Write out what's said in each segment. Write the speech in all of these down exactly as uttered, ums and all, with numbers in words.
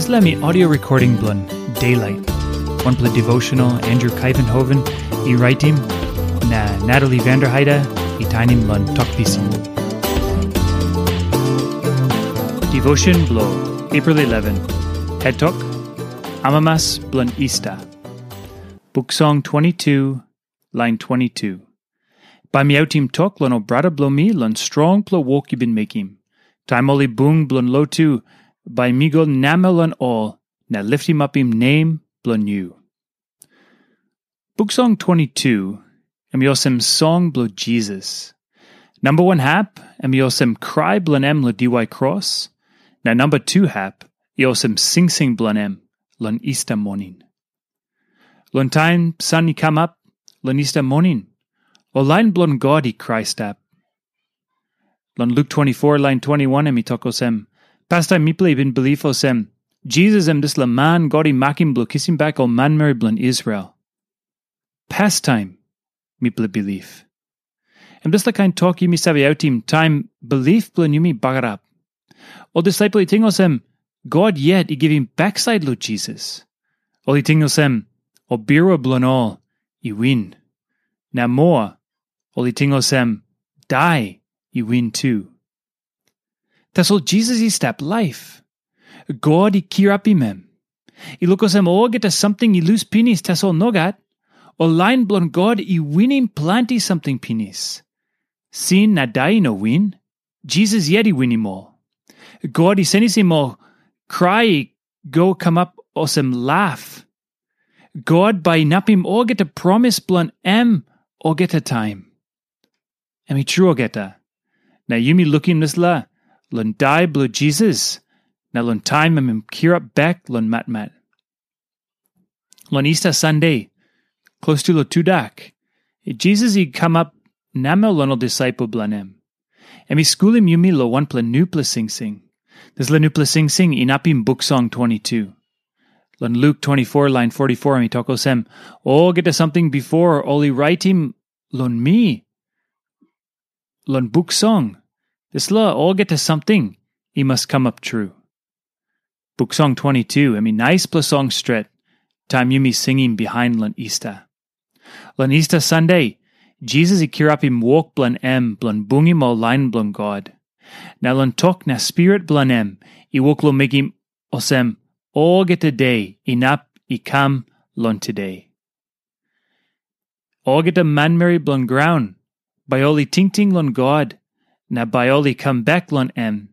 Dispela mi audio recording bilong Daylight. Wanpela devotional Andrew Kaivenhoven i raitim, na Natalie Vanderheide i tainim long tok pisin. Devotion bilong April eleven. Head tok, Amamas bilong Easter. Buk Song twenty-two, lain twenty-two. Bai mi autim tok long ol brata bilong mi long strongpela wok yu bin mekim. Taim ol i bung bilong lotu, bai mi go namel long ol na litimapim nem bilong yu. Buk Song twenty-two, em i olsem song bilong Jisas. Namba wan hap, em i olsem krai bilong em long diwai kros, na namba tu hap, i olsem singsing bilong em long Easter moning. Long taim san i kamap, long Easter moning, ol lain bilong God i krai stap. Long Luk twenty-four, lain twenty-one, em i tok olsem, pastaim mipela i bin bilip olsem, Jisas em dispela man God i makim bilong kisim bek ol manmeri bilong Israel. Pastaim mipela bilip. Em dispela kain tok yumi save autim taim bilip bilong yumi bagarap. Ol disaipel i ting olsem, God yet i givim baksait long Jisas. Ol i ting olsem, ol birua bilong ol i win. Na moa, ol i ting olsem, dai i win tu. Tasol Jisas i stap laip. God i kirapim em. I luk olsem olgeta samting i lus pinis, tasol nogat. Ol lain bilong God i winim planti samting pinis. Sin na dai i no win. Jisas yet i winim ol. God i senisim ol krai i go kamap olsem laf. God bai inapim olgeta promis bilong em olgeta taim. Em i tru olgeta. Na yumi lukim dispela long dai bilong Jisas, na long taim em i kirap bek long matmat. Long Easter Sande, klostu long tudak, Jisas i kamap namel long ol disaipel bilong em. Em i skulim yumi long wanpela nupela singsing. Dispela nupela singsing inapim Buk Song twenty-two. Long Luk twenty-four, lain forty-four, em i tok olsem, olgeta samting bipo ol i raitim long mi, long Buk Song, dispela olgeta samting i mas kamap tru. Buk Song twenty-two, em i naispela song stret, taim yumi singim bihain long Easter. Long Easter Sande, Jisas i kirapim wok bilong em bilong bungim ol lain bilong God. Na long tok na spirit bilong em i wok long mekim olsem olgeta de inap i kam long tude. Olgeta manmeri bilong graun, bai ol i tingting long God, na bai ol i kam bek long em.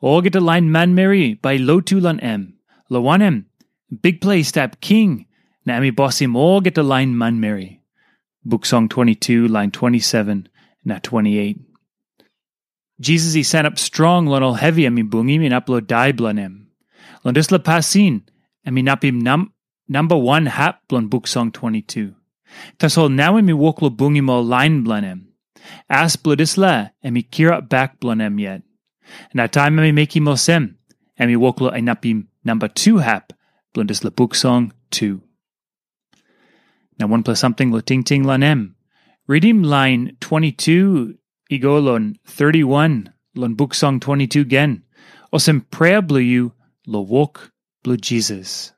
Olgeta lain manmeri bai i lotu long em, long wanem, Bikpela i stap king, na em i bosim olgeta lain manmeri. Buk Song twenty-two, lain twenty-seven na twenty-eight. Jisas i sanap strong long ol hevi em i bungim inap long dai bilong em. Long dispela pasin, em inapim nam, namba wan hap bilong Buk Song twenty-two. Tasol nau em i wok long bungim ol lain bilong em. As bilong dispela, em i kirap bek bilong em yet. Na taim em i mekim olsem, em i wok long inapim namba tu hap bilong dispela Buk Song tu. Na wanpela samting long tingting long em. Ritim lain twenty-two i go long thirty-one long Buk Song twenty-two gen, olsem prea bilong yu long wok bilong Jisas.